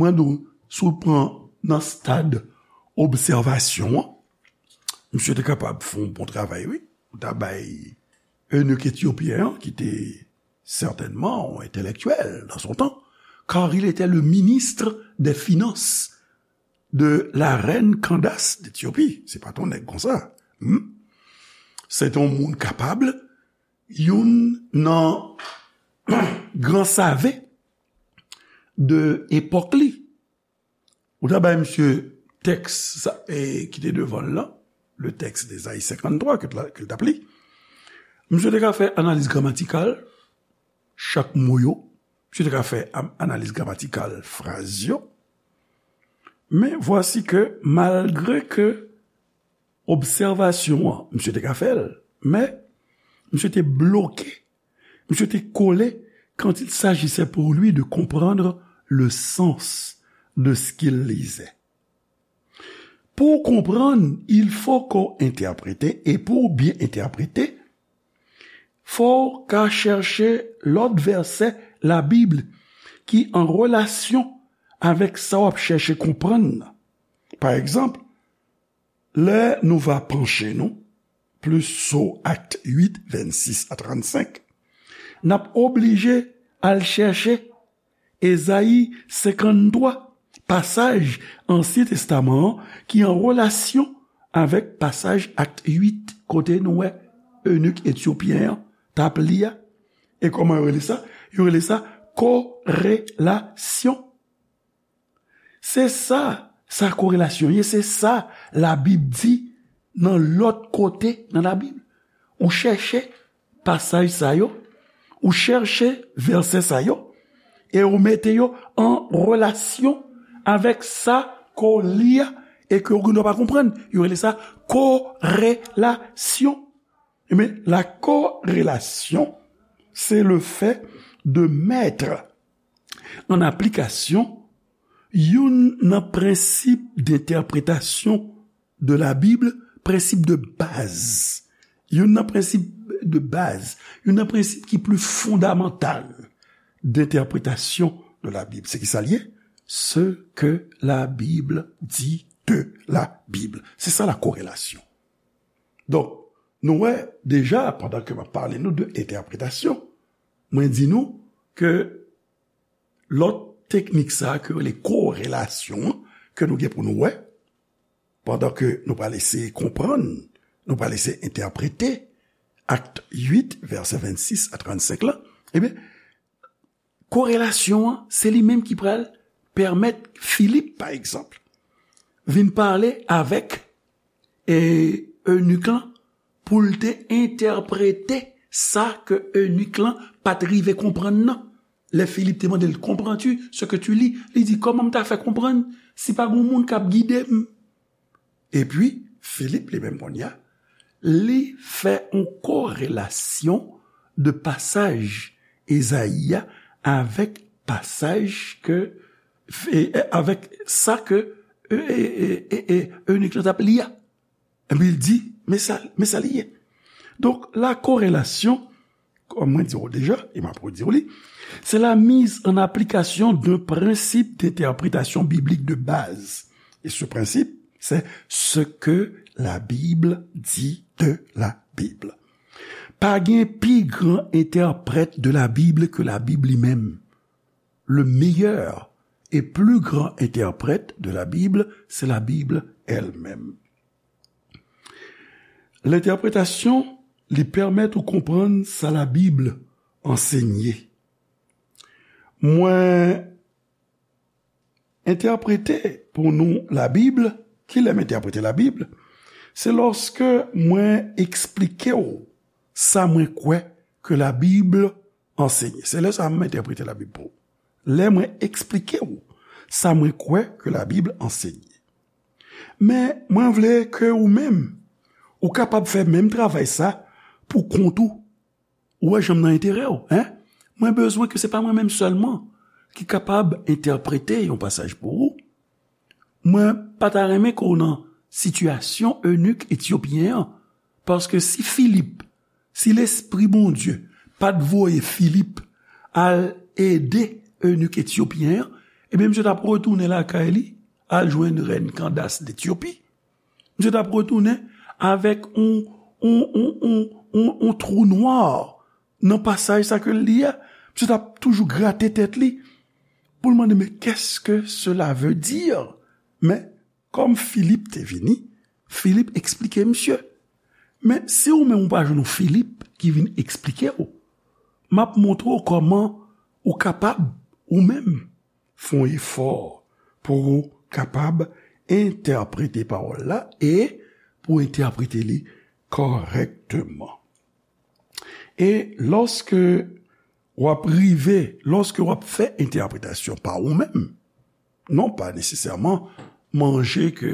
mwen di w, si w pran nan stad obsèvasyon an, misye te kapab fè yon bon travay, wi. Ou ta bay eunik etyopyen an, ki te certainement intellectuel dans son temps, car il était le ministre des Finances de la reine Candace d'Éthiopie. Se pa t yon nèg konsa. Hmm? Se te yon moun kapab, youn nan gran save de epòk li. Ou ta bay misye tèks sa, e, ki te devan l lan, le texte d'Ésaïe cinquante-trois ke l, ke l t ap li. Misye te ka fè analiz gramatikal chak mo yo. Misye te ka fè am-, analiz gramatikal fraz yo. Men vwasi ke, malgre ke obsèvasyon an, misye te ka fè l, men misye te bloke, misye te kole quand il s'agissait pour lui de comprendre le sens de ce qu'il lisait. Pou w konprann, il faut qu'on interprète, e pou w byen entèprete, fò w ka chèche lòt vèsè Labib ki an relasyon avèk sa w ap chèche konprann nan. Pa egzanp, lè nou va panche nou plis sou Akt uit, vennsis a trannsenk, n ap oblije al chèche Ezayi senkanntwa, pasaj Ansyen Testaman an ki an relasyon avèk pasaj Akt uit, kote nou wè eunik etyopyen an t ap li a. E kòman yo rele sa? Yo rele sa korelasyon. Se sa, sa korelasyon ye, se sa Labib di nan lòt kote nan Labib. Ou chèche pasaj sa yo, ou chèche vèsè sa yo, e ou mete yo an relasyon avèk sa ke w li a e ke w gendwa pa konprann. Yo rele sa korelasyon. Ebyen, la corrélation, c'est le fait de mettre en application youn nan prensip d'entèpretasyon de Labib, prensip de baz. Youn nan prensip de baz, youn nan prensip ki pli fondamantal d'entèpretasyon de Labib. Se ki sa l ye? Ce que la Bible dit de la Bible. Se sa la korelasyon. Donk, nou wè deja, pandan ke m ap pale nou de entèpretasyon, mwen di nou ke lòt teknik sa a ke yo rele korelasyon an, ke nou gen pou nou wè, pandan ke nou pral eseye konprann, nou pral eseye entèprete Akt uit, vèsè vennsis a trannsenk la, ebyen, korelasyon an, se li menm ki pral pèmèt Filip, pa egzanp, vin pale avèk, e, eunik lan pou l te entèprete sa ke eunik lan pa t rive konprann nan. Lè Filip te mande l, "Comprends-tu ce que tu lis?" Li di, "Kòman m ta fè konprann si pa gen moun k ap gide m?" Epi, Filip li menm kounye a, li fè yon korelasyon de pasaj Ezayi a avèk pasaj ke, e, e, avèk sa ke, e, e, e, e, e, eunik lan t ap li a. Epi l di, men sa, men sa li ye. Donk, la korelasyon, kòm mwen di w deja, e m ap redi w li, c'est la mise en application d'un principe d'interprétation biblique de base. Et ce principe, c'est ce que la Bible dit de la Bible. Pa gen pi gran entèprèt de la Bible ke la Bib li menm. Le meilleur et plus grand interprète de la Bible, c'est la Bible elle-même. Lentèpretasyon, li pèmèt ou konprann sa Labib ansenye. Mwen entèprete pou nou Labib, kilè m entèprete Labib? Se lòske mwen eksplike w sa mwen kwè ke Labib ansenye. Se lè sa a m entèprete Labib pou ou. Lè mwen eksplike w sa mwen kwè ke Labib ansenye. Men, mwen vle ke ou menm, ou kapab fè menm travay sa pou kont ou. Ou wè jan m nan enterè w, en? Mwen bezwen ke se pa mwen menm sèlman ki kapab entèprete yon pasaj pou ou. Mwen pa ta renmen ke w nan sitiyasyon enik etyopyen an, paske si Filip, si Lespri Bondye pa t voye Filip al ede enik etyopyen an, ebyen, misye t ap retounen lakay li, al jwenn rèn Kandas d Etyopi. Misye t ap retounen avèk yon, yon, yon, yon, yon, yon twou nwa nan pasaj sa ke l li a. Misye t ap toujou grate tèt li pou l mande, "Mais qu'est-ce que cela veut dire?" Men, kòm Filip te vini, Filip eksplike misye. Men, si ou menm ou pa jwenn yon Filip ki vin eksplike w, m ap montre w kòman ou kapab, ou menm, fè yon efò pou ou kapab entèprete pawòl la e pou entèprete li kòrèkteman. E lòske w ap rive, lòske w ap fè entèpretasyon pa ou menm, non pa nesesèman manje ke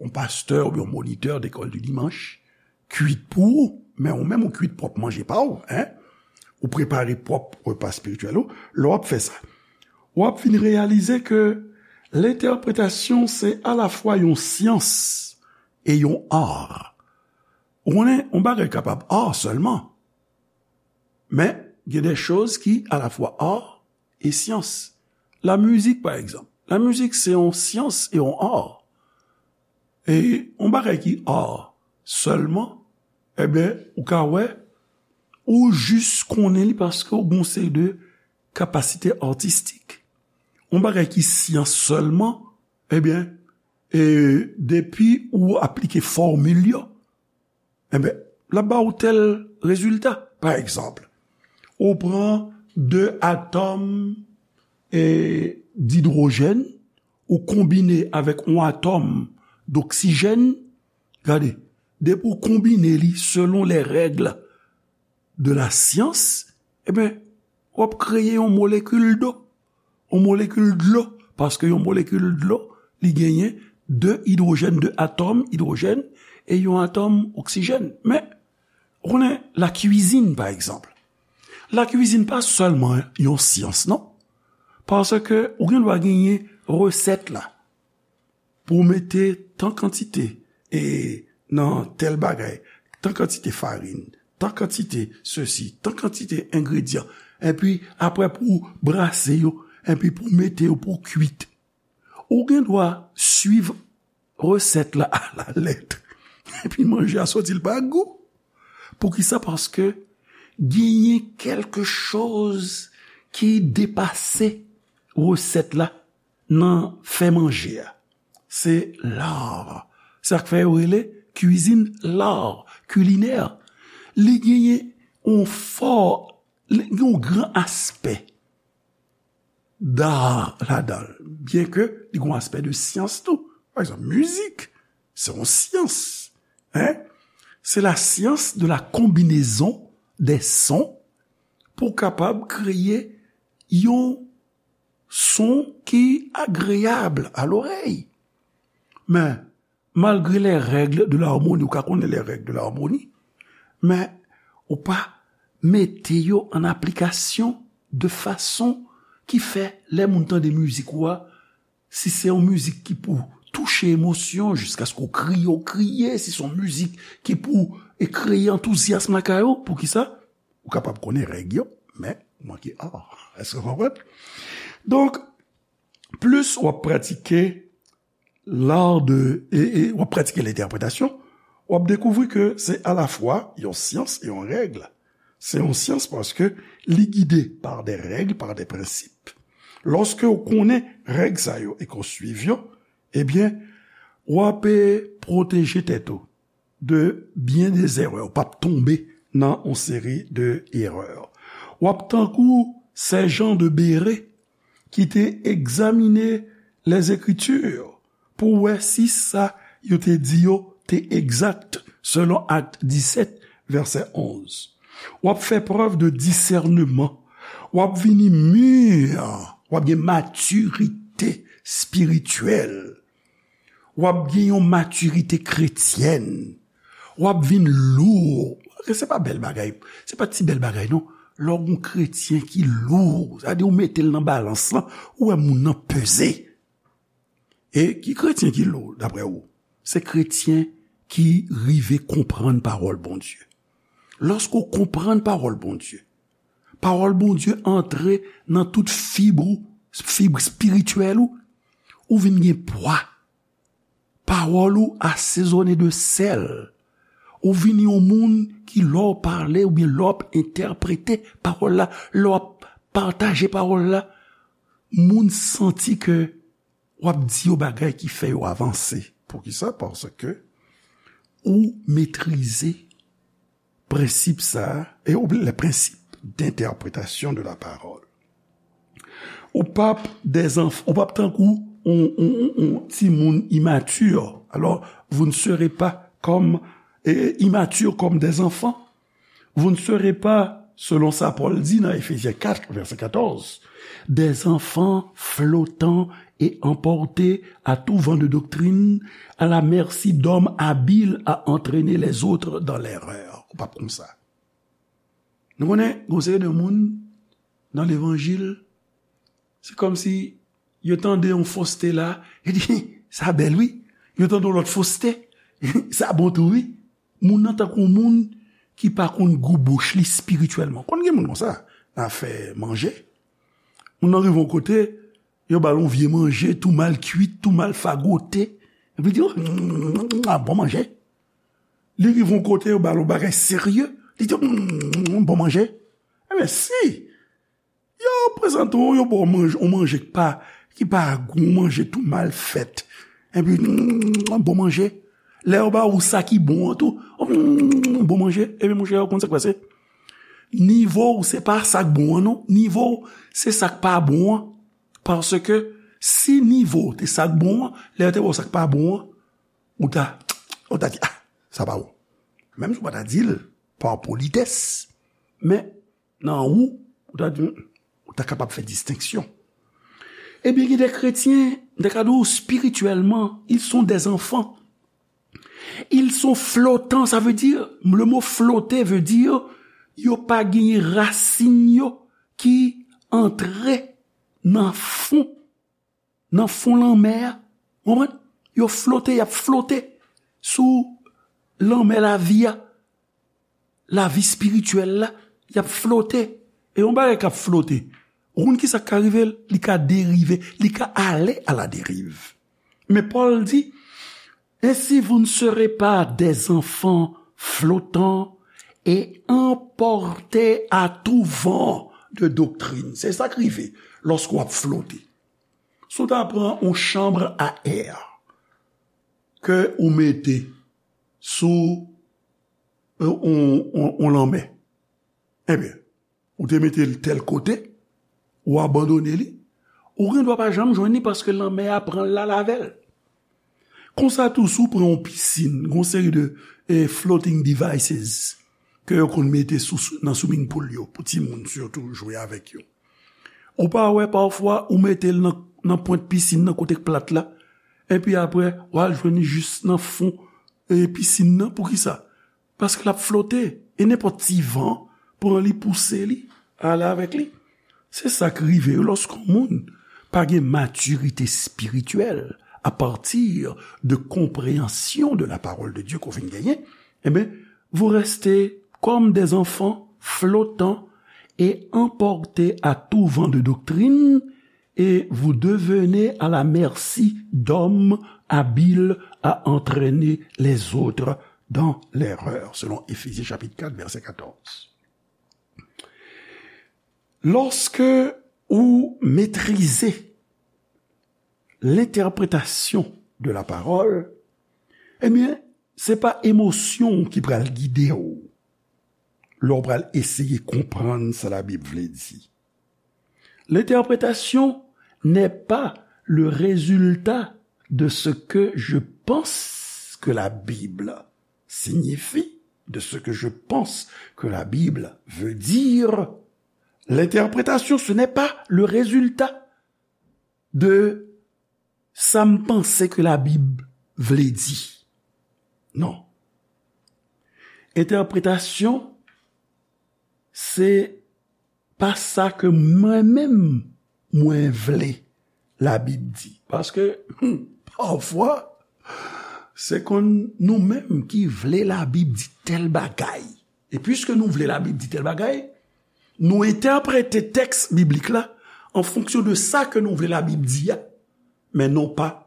yon pastè oubyen yon monitè dekòl di dimanch kuit pou ou, men ou menm ou kuit pwòp manje pa w, en? Ou prepare pwòp repa espirityèl ou. Lè w ap fè sa, w ap vin reyalize ke lentèpretasyon se alafwa yon syans e yon ar. Ou konnen, yon bagay kapab ar sèlman, men gen de choz ki alafwa ar e syans. Lamizik, pa egzanp. Lamizik se yon syans e yon ar. E yon bagay ki ar sèlman, ebyen, ou ka wè, ou jis konnen li paske ou gen yon seri de kapasite atistik. Yon bagay ki syans sèlman, ebyen, e depi ou aplike fòmil yo, enben, l ap ba ou tèl rezilta. Pa egzanp, ou pran de atòm, e, didwojèn, ou konbine avèk yon atòm doksijèn, gade, depi ou konbine li selon les règles de la science, enben, w ap kreye yon molekil dlo. Yon molekil dlo, paske yon molekil dlo, li genyen de idwojèn, de atòm idwojèn, e yon atòm oksijèn. Men, ou konnen lakwizin, pa egzanp. Lakwizin pa sèlman yon syans, non. Paske ou gen dwa genyen resèt la. Pou w mete tan kantite, e, nan tèl bagay, tan kantite farin, tan kantite sesi, tan kantite engredyan, epi apre pou w brase yo, epi pou w mete yo pou w kuit. Ou gen dwa swiv resèt la alalèt, epi manje a soti l pa gou. Poukisa? Paske genyen kèlke choz ki depase resèt la nan fè manje a. Se lar. Se sa k fè yo rele kwizin lar, kilinè. Li genyen yon fò, li gen yon gran aspè dar ladan l, byenke li gen yon aspè de syans tou. Pa egzanp, mizik, se yon syans. En? C'est la science de la combinaison des sons pou w kapab kreye yon son ki agreyab a lorèy. Men, malgre les règles de l'harmonie, ou ka konnen les règles de l'harmonie, men ou pa mete yo an aplikasyon de fason ki fè lè moun tande mizik ou a, si se yon mizik ki pou touche emosyon, jiskaske w kriye, w kriye, si se yon mizik ki pou e kreye antouzyasm lakay ou, poukisa? Ou kapab konnen règ yo, men ou manke, ah, èske w konprann? Donk, plis w ap pratike l'art de, e, e w ap pratike lentèpretasyon, w ap dekouvri ke se alafwa yon syans e yon règ. Se yon syans paske li gide par des règles, par des principes. Lòske w konnen règ sa yo e ke w swiv yo, ebyen, w ap, e, pwoteje tèt ou de byen de erè. W p ap tonbe nan yon seri de erè. W ap tankou sèjan de bere ki te egzamine les Écritures pou wè si sa yo te di yo te egzak, selon Akt disèt, vèsè onz. W ap fè prèv de disèneman. W ap vini mir. W ap gen matirite espirityèl. W ap gen yon matirite kretyèn. W ap vin lou. Se pa bèl bagay. Se pa ti bèl bagay, non. Lè w gen yon kretyen ki lou, sa vle di ou mete l nan balans lan, ou wè moun nan peze. E ki kretyen ki lou, daprè ou? Se kretyen ki rive konprann pawòl Bondye. Lòske w konprann pawòl Bondye, pawòl Bondye antre nan tout fib ou, fib espirityèl ou, ou vin gen pwa. Pawòl ou asezone de sèl. Ou vin yon moun ki, lè w pale oubyen lè w ap entèprete pawòl la, lè w ap pataje pawòl la, moun santi ke w ap di yo bagay ki fè yo avanse. Poukisa? Paske ou metrize prensip sa a, e ou, les principes d'interprétation de la parole. Ou p ap des enf-, ou p ap tankou yon, yon, yon, yon timoun immature. Alors, vous ne serez pas comme, eh, immature comme des enfants. Vous ne serez pas, selon sa Pòl di nan Efezyen kat, vèsè katòz, des enfants flottants et emportés à tout vent de doctrine, à la merci d'hommes habiles à entraîner les autres dans l'erreur. Ou p ap konsa. Nou konnen, gon seri de moun nan levanjil, se kòmsi yo tande yon foste la, yo di, "Sa bèl, wi." Yo tande yon lòt foste, "Sa bon tou, wi." Moun nan tankou moun ki pa konn gou bouch li espirityèlman. Konn gen moun konsa, nan afè manje. Moun nan rive yon kote, yo ba l yon vye manje, tou mal kuit, tou mal fagote. Epi li di, "Oh, mm, ah, bon manje." Li rive yon kote, yo ba l yon bagay serye. Li di, "Mm, bon manje." Ebyen, si yo prezante w, yo ba w manje, yon manje ki pa, ki pa gou, yon manje tou mal fèt. Epi, mm, bon manje. Lè yo ba ou sa ki bon an tou, oh, mm, bon manje. Ebyen, monchè, ou konn sa k pase? Nivo w se pa sa k bon an, non. Nivo w se sa k pa bon an. Paske si nivo w te sa k bon an, lè yo te ba w sa k pa bon an, ou ta, ou ta di, "Ah, sa pa bon." Menm si w pa ta di l pa politès, men nan ou, ou ta di, ou ta kapab fè distenksyon. Ebyen, gen de kretyen, m te ka di w, spirityèlman, ils sont des enfants. Ils sont flottants, ça veut dire, le mot flotter veut dire, yo pa genyen rasin yo ki antre nan fon, nan fon lanmè a. Ou konprann? Yo flote, y ap flote sou lanmè lavi a. Lavi espirityèl la, y ap flote. E yon bagay k ap flote, ou konn ki sa k ka rive l? Li ka derive, li ka ale à la dérive. Men Pòl di, "Ainsi vous ne serez pas des enfants flottants et emportés à tout vent de doctrine." Se sa k rive lòske w ap flote. Si w ta pran yon chanm a è ke ou mete sou, e, yon, yon, yon lanmè, ebyen, ou te mete l tèl kote, ou abandone li, ou gen dwa pa janm jwenn li paske lanmè a pran l al avè l. Konsa tou, si w pran yon pisin, gen yon seri de, e, floating devices, ke yo konn mete sou, nan swimming pool yo, pou timoun sitou jwe avèk yo. Ou pa wè pafwa ou mete l nan, nan pwent pisin nan kote k plat la, epi apre w al jwenn li jis nan fon, e, pisin nan. Poukisa? Paske l ap flote, e nenpòt ti van pran li, pouse li, ale avèk li. Se sa k rive yo lòske yon moun pa gen matirite espirityèl à partir de compréhension de la parole de Dieu ke w vin genyen, ebyen, vous restez comme des enfants flottants et emportés à tout vent de doctrine, et vous devenez à la merci d'hommes habiles à entraîner les autres dans l'erreur, selon Éphésiens chapitre quatre, verset quatorze. Lòske ou metrize lentèpretasyon de la pawòl, ebyen, se pa emosyon ki pral gide w lè w pral eseye konprann sa Labib vle di. L'interprétation n'est pas le résultat de ce que je pense que la Bible signifie, de ce que je pense que la Bible veut dire. L'interprétation, ce n'est pas le résultat de sa m panse ke Labib vle di. Non. Entèpretasyon, se pa sa ke mwen menm mwen vle Labib di. Paske, hmm, pafwa, se konn nou menm ki vle Labib di tèl bagay. E piske nou vle Labib di tèl bagay, nou entèprete tèks biblik la an fonksyon de sa ke nou vle Labib di a, men non pa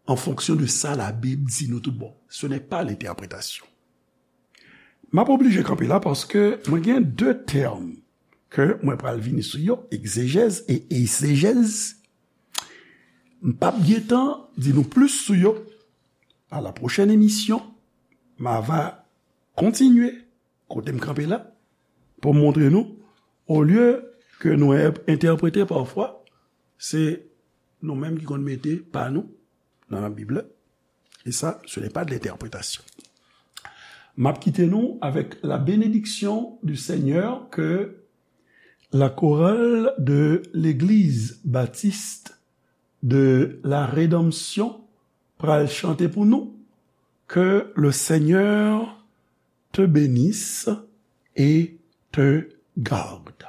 an fonksyon de sa Labib di nou tout bon. Ce n'est pas l'interprétation. M ap oblije kanpe la paske mwen gen de tèm ke mwen pral vini sou yo, egzejèz e eysejèz. M p ap gen tan di nou plis sou yo. À la prochaine émission, m a va kontinye kote m kanpe la pou m montre nou, olye ke nou en-, entèprete pafwa, se nou menm ki konn mete pa nou nan Labib la. Et ça, ce n'est pas de l'interprétation. M ap kite nou avec la bénédiction du Seigneur que la chorale de l'Église baptiste de la Rédemption pral chante pou nou. Que le Seigneur te bénisse et te garde.